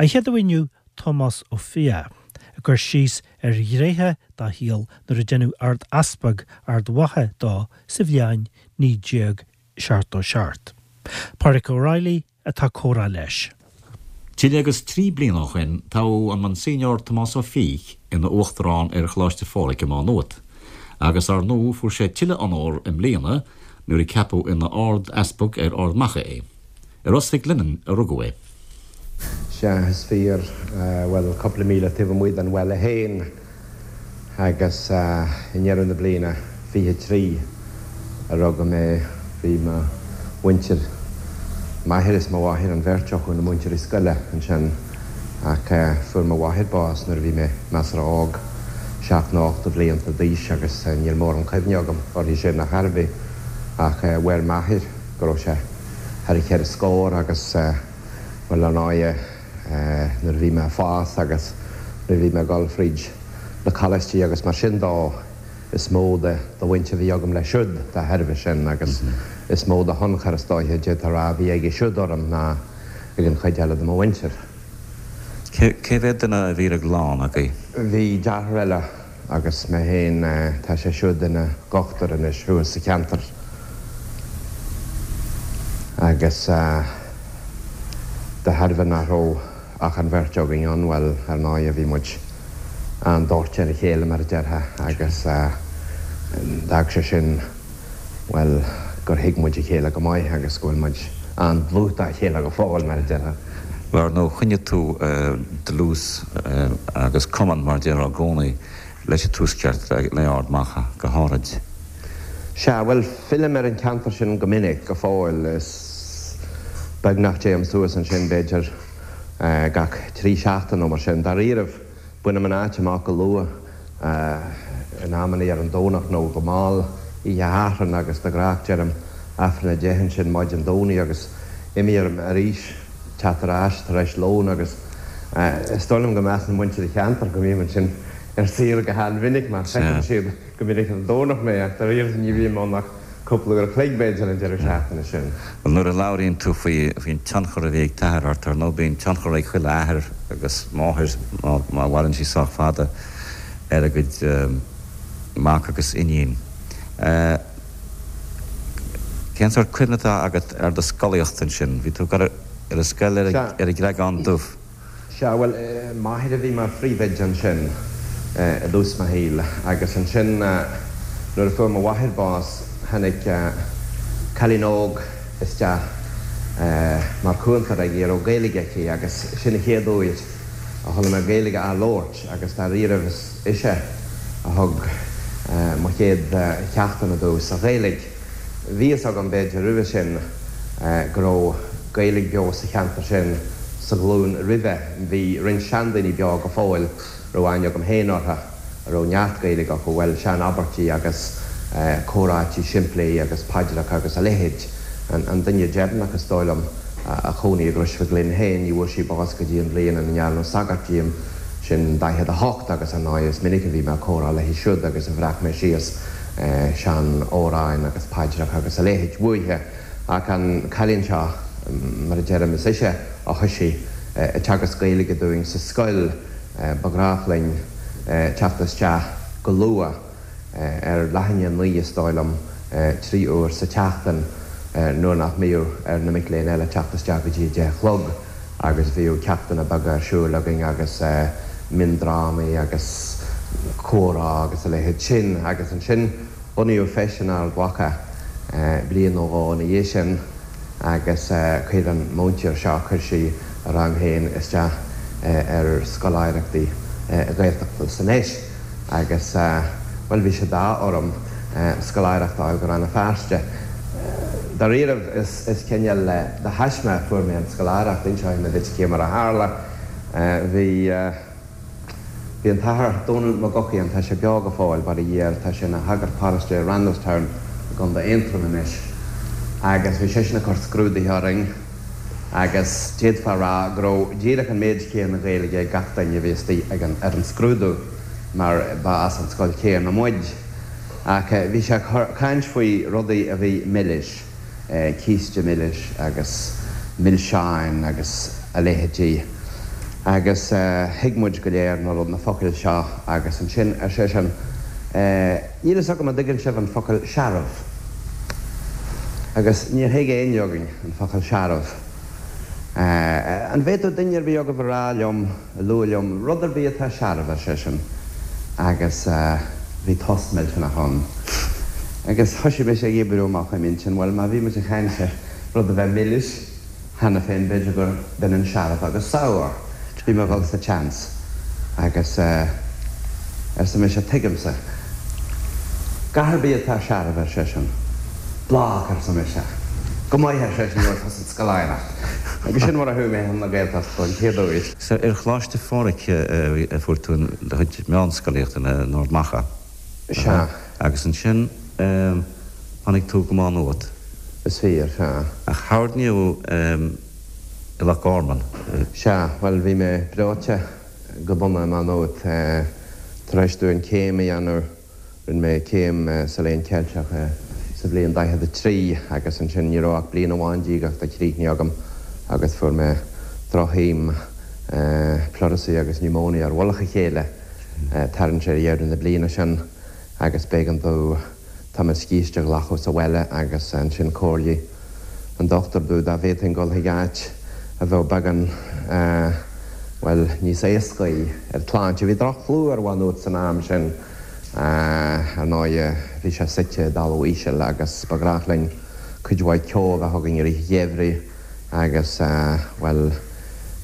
An chéad aoi inniu, Tomás Ó Fiaich, ag cur síos ar ghnéithe dá shaol nuair a deineadh Ard-Easpag Ard Mhacha dó sa bhliain 1977. Pádraic Ó Raghallaigh atá ag comhrá leis. Tuilleadh agus 3 bliana ó shin toghadh an Monsignor Tomás Ó Fiaich ina Uachtarán ar Choláiste Phádraig i Má Nuat, agus ar ndóigh fuair sé tuilleadh onóir i mbliana nuair a ceapadh ina Ard-Easpag ar Ard Macha é. I Ros Mhic Lionnain a rugadh é. Sea, is fíor. Bhuel, cúpla míle taobh amuigh den bhaile féin. Agus i ndeireadh na bliana 23 a rugadh mé, bhí mo mhuintir, m'athair is mo mháthair, an bheirt acu ina múinteoirí scoile ansin. Ach fuair mo mháthair bás nuair a bhí mé measartha óg, seacht nó ocht de bhlianta d'aois, agus níl mórán cuimhne agam uirthi sin ar chor ar bith. Ach mhair m'athair go raibh sé thar a cheithre scór agus, bhuel, ar ndóighe, nuair a bhí mé ag fás agus nuair a bhí mé ag dul fríd na coláistí agus mar sin dó, is mó de bhaint a bhí agam leis siúd dá thairbhe sin agus is mó de thionchar, is dóiche, d'fhéadfá a rá, a bhí aige siúd orm ná ag an chuid eile de mo mhuintir. Cé mhéad duine a bhí ar an gclann agaibh? Bhí deartháir eile Agus mé féin, tá sé siúd ina dhochtúir anois thuas sa cheantar. Agus de thairbhe nach raibh ach an bheirt againn ann, bhuel, ar ndóighe, bhí muid an-dóite ar a chéile, mar a déarfá, agus d'fhág sé sin, bhuel, gur thuig muid a chéile go maith agus go bhfuil muid an-dlúth dá chéile go fóill, mar a déarfá. Bhuel, ar ndóigh, choinnigh tú dlús agus cumann, mar a déarfá, i gcónaí leis an Tuaisceart, le Ard Mhacha go háirid. Sea, bhuel, fillim ar an cheantar sin go minic, go fóill. Is beag nach dtéim suas ansin, b'fhéidir, gach 3 seachtain nó mar sin. Dáiríribh, Bainim an áit amach go luath, in amannaí ar an Domhnach nó go mall oíche Shathairn agus de ghnách deirim Aifreann a 10 ansin maidin Domhnaigh agus imím orm arís teacht ar ais tar éis lóin agus is dóigh liom go measann muintir an cheantair go mbím ansin ar saoire go han-mhinic mar feiceann siad go minic ar an Domhnach mé ach dáiríre ní bhím ann ach cúpla uair a chloig, b'fhéidir, an deireadh seachtaine sin. Bhuel, nuair a labhraíonn tú faoi, faoin tionchar a bhí ag t'athair ort, ar ndóigh bíonn tionchar ag chuile athair agus máthair, má, má mhaireann sí sách fada, ar a gcuid mac agus iníon. Cén sórt cuimhne atá agat ar do scolaíocht ansin? Bhí tú ag dul ar an scoil ar Sea. ar an gCreagán Dubh. Sea, bhuel, m'athair a bhí mar phríomhoide ansin i dtús mo shaoil agus ansin nuair a fuair mo mháthair bás tháinig cailín óg isteach mar chúntóir aici a raibh Gaeilge aici agus sin an chéad uair a chuala mé Gaeilge á labhairt agus dáiríribh is ise a thug mo chéad cheachtanna domh sa Ghaeilge. Bhí fhios agam, b'fhéidir, roimhe sin go raibh Gaeilge beo sa cheantar sin sa ghlúin roimhe. Bhí roinnt seandaoine beo go fóill a raibh aithne agam féin orthu a raibh neart Gaeilge acu, bhuel, sean-abairtí agus comhráití simplí agus paidreacha agus a leithéid. An duine deireanach, is dóigh liom, a chónaigh i gCrois Mhic Lionn féin, ní bhfuair sí bás go dtí an bhliain ina ndearnadh sagart díom, sin 48, agus ar ndóigh is minic a bhí mé ag comhrá léi siúd agus a bhreac mé síos sean-amhráin agus paidreacha agus a leithéid uaithi. Ach an cailín seo, mar a deirim, is ise a thoisigh ag teagasc Gaeilge dúinn sa scoil. Ba ghnách linn teacht isteach go luath, ar leath i ndiaidh a 9 is dóigh liom, 3 uair sa tseachtain, nuair nach mbíodh ar na mic léinn eile teacht isteach go dtí a 10 a chlog. agus bhíodh ceachtanna beaga ar siúl againn agus miondrámaí agus comhrá agus a leithéid sin agus ansin bunaíodh Feis in Ard Mhacha bliain nó dhó ina dhiaidh sin agus chuir an múinteoir seo, chuir sí a rang féin isteach ar scoláireachtaí Gaeltachta san Fheis. Agus, bhuel, bhí sé d'ádh orm scoláireacht a fháil go Rann na Feirste. Dáiríribh, is cineál de thaisme a fuair mé an scoláireacht. Inseoidh mé duit cé mar a tharla. Bhí, bhí an tAthair Dónal Mac Eochaidh, tá sé beo go fóill, bail ó Dhia air, tá sé ina shagart paróiste i Randalstown i gContae Aontroim anois. Agus bhí seisean ag cur scrúduithe orainn. agus d'fhéadfá a rá go raibh díreach an méid céanna Gaeilge ag gach duine a bhí istigh ag an ar an scrúdú mar ba as an scoil chéanna muid. Ach bhí sé ag caint faoi rudaí a bhí milis, císte milis agus milseáin agus a leithéidí. Agus thuig muid go léir na rud, na focail seo agus ansin ar seisean, Níl fhios agam an dtuigeann sibh an focal searbh. Agus níor thuig éinne againn an focal searbh. An bhféadfadh duine ar bith agaibh a rá liom, a lua liom, rud ar bith atá searbh, ar seisean. Agus bhí tost millteanach ann. Agus thoisigh mise ag oibriú amach i m'intinn, bhuel, má bhí muid ag caint ar rud a bheith milis, cheana féin, b'fhéidir gur b'ionann searbh agus sour. Bhí mé ag dul sa tseans agus arsa mise, tuigimse. Gach ar bith atá searbh, ar seisean. Blag, arsa mise. Go maith, ar seisean, gheobhaidh tusa an scoláireacht. Agus sin mar a chuaigh mé chun na Gaeltachta don chéad uair. Sea, ar Choláiste Phádraig a fuair tú do chuid meánscolaíochta in Ard Mhacha. Sea. Agus ansin tháinig tú go Má Nuat. Is fíor, sea. Ach tharraing i Loch Garman. Sea, bhuel, bhí mé breoite go dona i Má Nuat. Tar éis domh an céim a dhéanamh, rinne mé céim sa Léann Ceilteach sa bhliain 43 agus ansin ní raibh ach bliain amháin díreach críochnaithe agam agus fuair mé droch-thaom, pleurisy agus pneumonia ar mhullach a chéile. Tarraingt ar dheireadh na bliana sin agus b'éigean domh tamall scíste a ghlacadh sa bhaile agus ansin chomhairligh an dochtúir domh dá bhféadfainn dul chuig áit a bheadh beagán, bhuel, níos éascaí ar tsláinte. Bhí droch-chlú ar Mhá Nuat san am sin, ar ndóighe, bhí sé suite i dtalamh íseal agus ba ghnách linn cuid mhaith ceo a bheith againn i rith an gheimhridh. Agus, bhuel,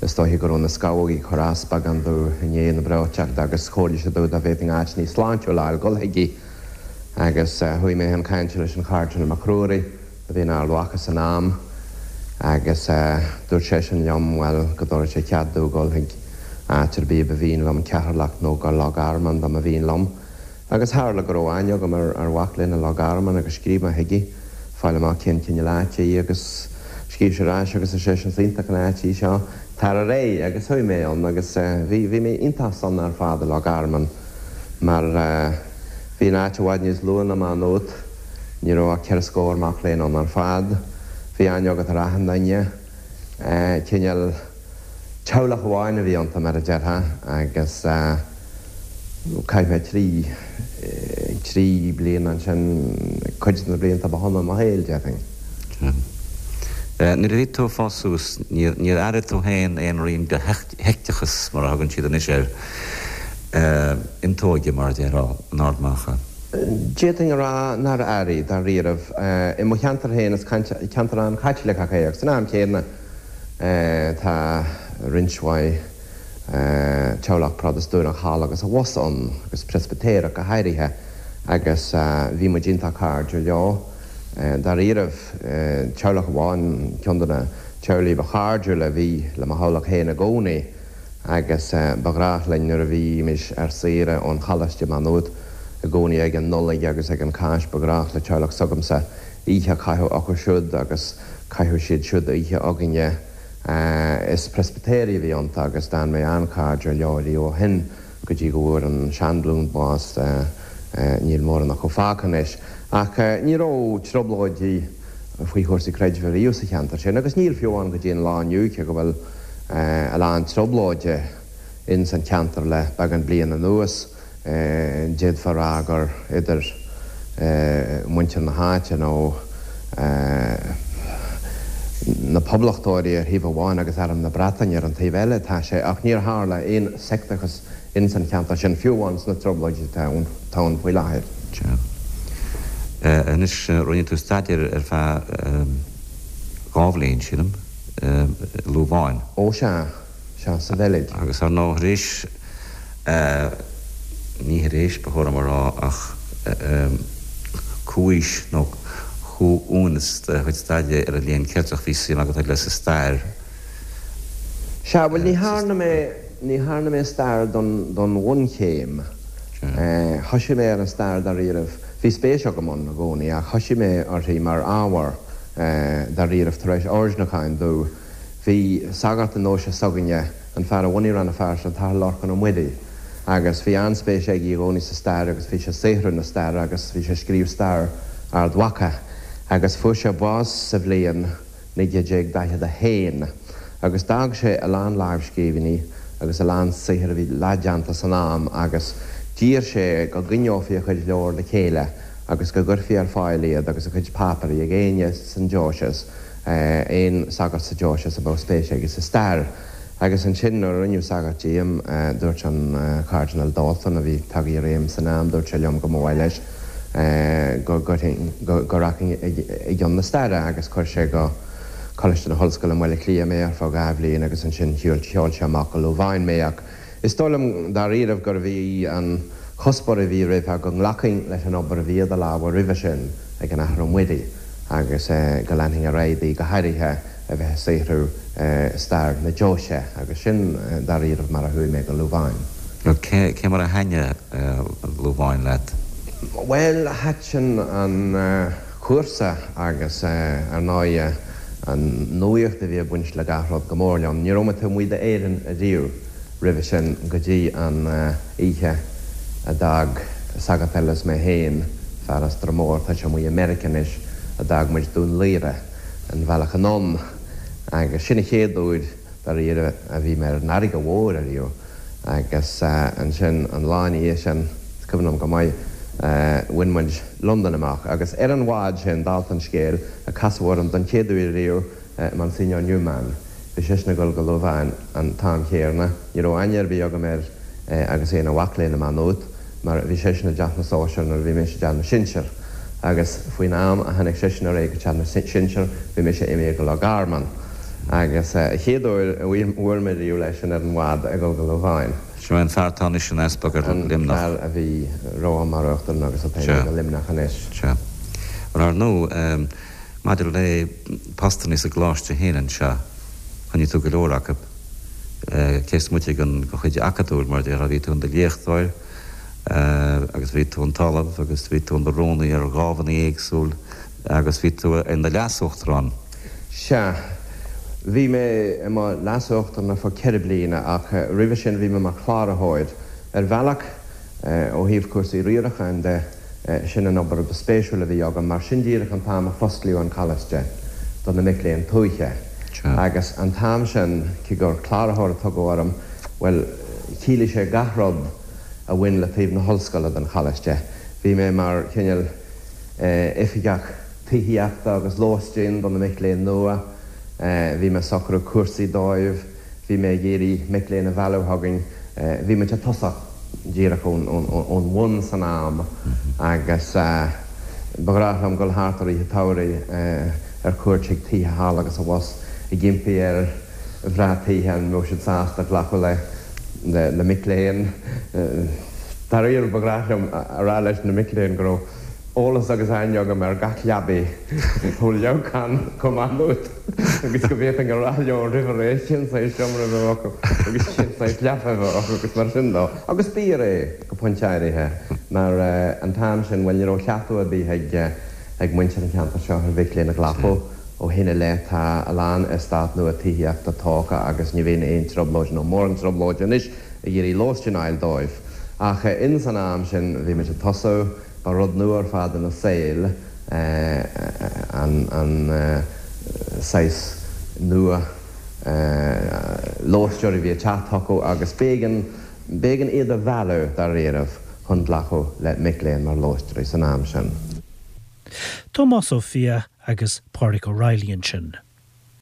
is dóiche go raibh na scamhógaí ag cur as beagán domh i ndiaidh na breoiteachta agus chomhairligh sé domh dá bhféadfainn áit níos sláintiúla a fháil dul chuici. Agus chuaigh mé chun cainte leis an Chairdinéal Mac Ruairí, a bhí in Ard Mhacha san am, agus dúirt seisean liom, bhuel, go dtabharfadh sé cead domh dul chuig áit ar bith a ba mhian liom, Ceatharlach nó go Loch Garman dá mba mhian liom. Agus tharla go raibh aithne agam ar mhac léinn i Loch Garman agus scríobh mé chuige, fáil amach cén cineál áite í agus scríobh sé ar ais agus ar seisean is iontach an áit í seo, tar ar aghaidh agus chuaigh mé ann agus bhí, bhí mé iontach sona ar fad i Loch Garman mar bhí an áit i bhfad níos lú ná Má Nuat, ní raibh ach ceithre scór mac léinn ann ar fad, bhí aithne agat ar achan duine, cineál teaghlach amháin a bhí iontu mar a déarfá agus. Chaith mé trí, trí bliana ansin, cuid de na blianta ba shona i mo shaol, déarfainn. Sea. Nuair a bhí tú ag fás suas, níor, níor airigh tú féin aon rian de sheicteachas, mar a thugann siad anois air, iontóige, mar a déarfá, in Ard Mhacha? D'fhéadfainn a rá nár airigh, dáiríribh. I mo cheantar féin, is ceantar an-Chaitliceach é, ach san am chéanna, tá roinnt mhaith, teaghlach Protastúnach thall agus abhus ann, agus Preispitéireach go háirithe, agus bhí muid iontach cairdiúil leo. Dáiríribh, teaghlach amháin, ceann de na teaghlaigh ba chairdiúla a bhí le mo theaghlach féin i gcónaí, agus ba ghnách linn nuair a bhímis ar saoire ón choláiste i Má Nuat i gcónaí ag an Nollaig agus ag an Cháisc, ba ghnách le teaghlach s'agamsa oíche a chaitheamh acu siúd agus chaitheadh siad siúd oíche againne. Is Preispitéirigh a bhí iontu agus d'fhan mé an-chairdiúil leo riamh ó shin go dtí go bhfuair an seanghlúin bás, níl mórán acu fágtha anois. Ach ní raibh trioblóidí faoi chúrsaí creidimh riamh sa cheantar sin agus níl fiú amháin go dtí an lá inniu cé go bhfuil a lán trioblóide ins an cheantar le beagán bliain anuas. D'fhéadfá a rá gur idir muintir na háite nó na poblachtóirí ar thaobh amháin agus Arm na Breataine ar an taobh eile atá sé, ach níor tharla aon seicteachas ins an cheantar sin, fiú amháin sna trioblóidí atá ann faoi láthair. Sea. Anois, rinne tú staidéar ar feadh dhá bhliain, sílim, i Lúváin. Ó sea. Sea, sa Bheilg. Agus ar ndóigh, tar éis, ní tar éis, ba chóir dom a rá, ach comhaois nó comhuaineas do chuid staidéir ar an Léann Ceilteach, bhí suim agat eile sa stair. Sea, bhuel, ní thearna mé, ní thearna mé stair don, don bhunchéim. Thoisigh mé ar an stair dáiríribh, bhí spéis agam ann i gcónaí, ach thoisigh mé uirthi mar ábhar dáiríribh tar éis oirdniúcháin domh. Bhí sagart i ndeoise s'againne, an fear a bhunaigh Rann na Feirste, an tAthair Lorcán Ó Muirí, agus bhí an-spéis aige i gcónaí sa stair agus bhí sé ag saothrú na staire agus bhí sé ag scríobh stair Ard Mhacha agus fuair sé bás sa bhliain 1941 agus d'fhág sé a lán lámhscríbhinní. agus a lán saothair a bhí leathdhéanta san am agus d'iarr sé go gcoinneofaí a chuid leabhar le chéile agus go gcuirfí ar fáil iad agus a chuid páipéirí ag éinne san deoise, aon sagart sa deoise a mbeadh spéis aige sa stair. Agus ansin nuair a rinneadh sagart díom, dúirt an Cardinal D'Alton, a bhí tagtha i réim san am, dúirt sé liom go mba mhaith leis go gcuirfinn, go rachainn i gcionn na staire agus chuir sé go Coláiste na hOllscoile i mBaile Átha Cliath mé ar feadh 2 bhliain agus ansin sheol sé amach go Louvain mé ach is dóigh liom dáiríribh gurbh í an chuspóir a bhí roimhe go nglacfainn leis an obair a bhí idir lámha roimhe sin ag an Athair Ó Muirí agus go leanfainn ar aghaidh di, go háirithe a bheith ag saothrú stair na deoise agus sin dáiríribh mar a chuaigh mé go Louvain. Cé mar a thaitnigh Louvain leat? Bhuel, thaitin an. cúrsa agus, ar ndóighe, an nuaíocht a bhí ag baint le gach rud go mór liom. Ní raibh mé taobh amuigh d'Éirinn ariamh roimhe sin go dtí an oíche a d'fhág sagart eile is mé féin, fear as Droim Mór, tá sé amuigh i Meiriceá anois, a d'fhág muid Dún Laoghaire an bhealach anonn agus sin an chéad uair dáiríre a bhí mé ar an fharraige mhór ariamh. Agus ansin an lá ina dhiaidh sin, is cuimhin liom go maith, bhain muid Londain amach. Agus ar an bhád sin, dálta an scéil, a casadh orm don chéad uair riamh Monsignor Newman. Bhí seisean ag dul go Louvain an t-am chéarna. Ní raibh aithne ar bith agam air agus é ina mhac léinn i Má Nuat, mar bhí seisean i dteach na sóisear nuair a bhí mise i dteach na sinsear. Agus faoin am a tháinig seisean ar aghaidh go teach na sinsear, bhí mise imithe go Loch Garman. Agus an chéad uair a bhuail mé riamh leis sin ar an bhád ag dul go Louvain. Sin é an fear atá anois ina easpag ar An Luimneach. fear a bhí romham mar uachtarán agus atá imithe go Luimneach anois. Sea. Bhuel, ar ndóigh, maidir le postannaí sa gcoláiste féin anseo, choinnigh tú go leor acu. Cé is moite den chuid acadúil, mar a déarfá, bhí tú in do léachtóir agus bhí tú in t'ollamh agus bhí tú in do rúnaí ar dhámhanna éagsúil agus bhí tú in do leas-uachtarán. Sea. Bhí mé i mo leas-uachtarán ar feadh ceithre bliana ach roimhe sin bhí mé mar chláraitheoir. Ar bhealach, ó thaobh cúrsaí riaracháin de, Sin an obair ba spéisiúla a bhí agam, mar sin díreach an t-am a fosclaíodh an Coláiste do na mic léinn tuaithe. Agus an t-am sin, cé gur cláraitheoir a tugadh orm, bhuel, chiallaigh sé gach rud a bhain le taobh na hollscoile den Choláiste. Bhí mé mar chineál oifigeach tithíochta agus lóistín do na mic léinn nua, bhí mé ag socrú cúrsaí dóibh, Bhí mé ag iarraidh mic léinn a mhealladh chugainn. Bhí muid ag tosach díreach ón bhun san am agus ba ghnách liom dul thart i rith an tsamhraidh ar cuairt chuig tithe thall agus abhus ag impí ar mhná tithe an mbeadh siad sásta glacadh le mic léinn. Dáiríre ba ghnách liom a rá leis na mic léinn go raibh eolas agus aithne agam ar gach leabaidh ó Leamhcán go Má Nuat. agus go bhféadfainn a rá leo roimh ré cén saghas seomra a bheadh acu agus cén saghas leapa a bheadh acu agus mar sin dó. Agus b'fhíor é go pointe áirithe mar an t-am sin, bhuel, ní raibh cleachtadh ar bith ag ag muintir an cheantair seo ar mhic léinn a ghlacadh. Ó shin i leith tá a lán eastát nua tithíochta tógtha agus ní bhíonn aon trioblóid nó mórán trioblóide anois ag iarraidh lóistín a fháil dóibh. Ach ins an am sin bhí muid ag tosú, ba rud nua ar fad ina saol, an saghas nua lóisteoirí a bhí ag teacht chucu agus b'éigean, b'éigean iad a mhealladh dáiríribh chun glacadh le mic léinn mar lóisteoirí san am sin. Tomás Ó Fiaich agus Pádraig O'Reilly ansin.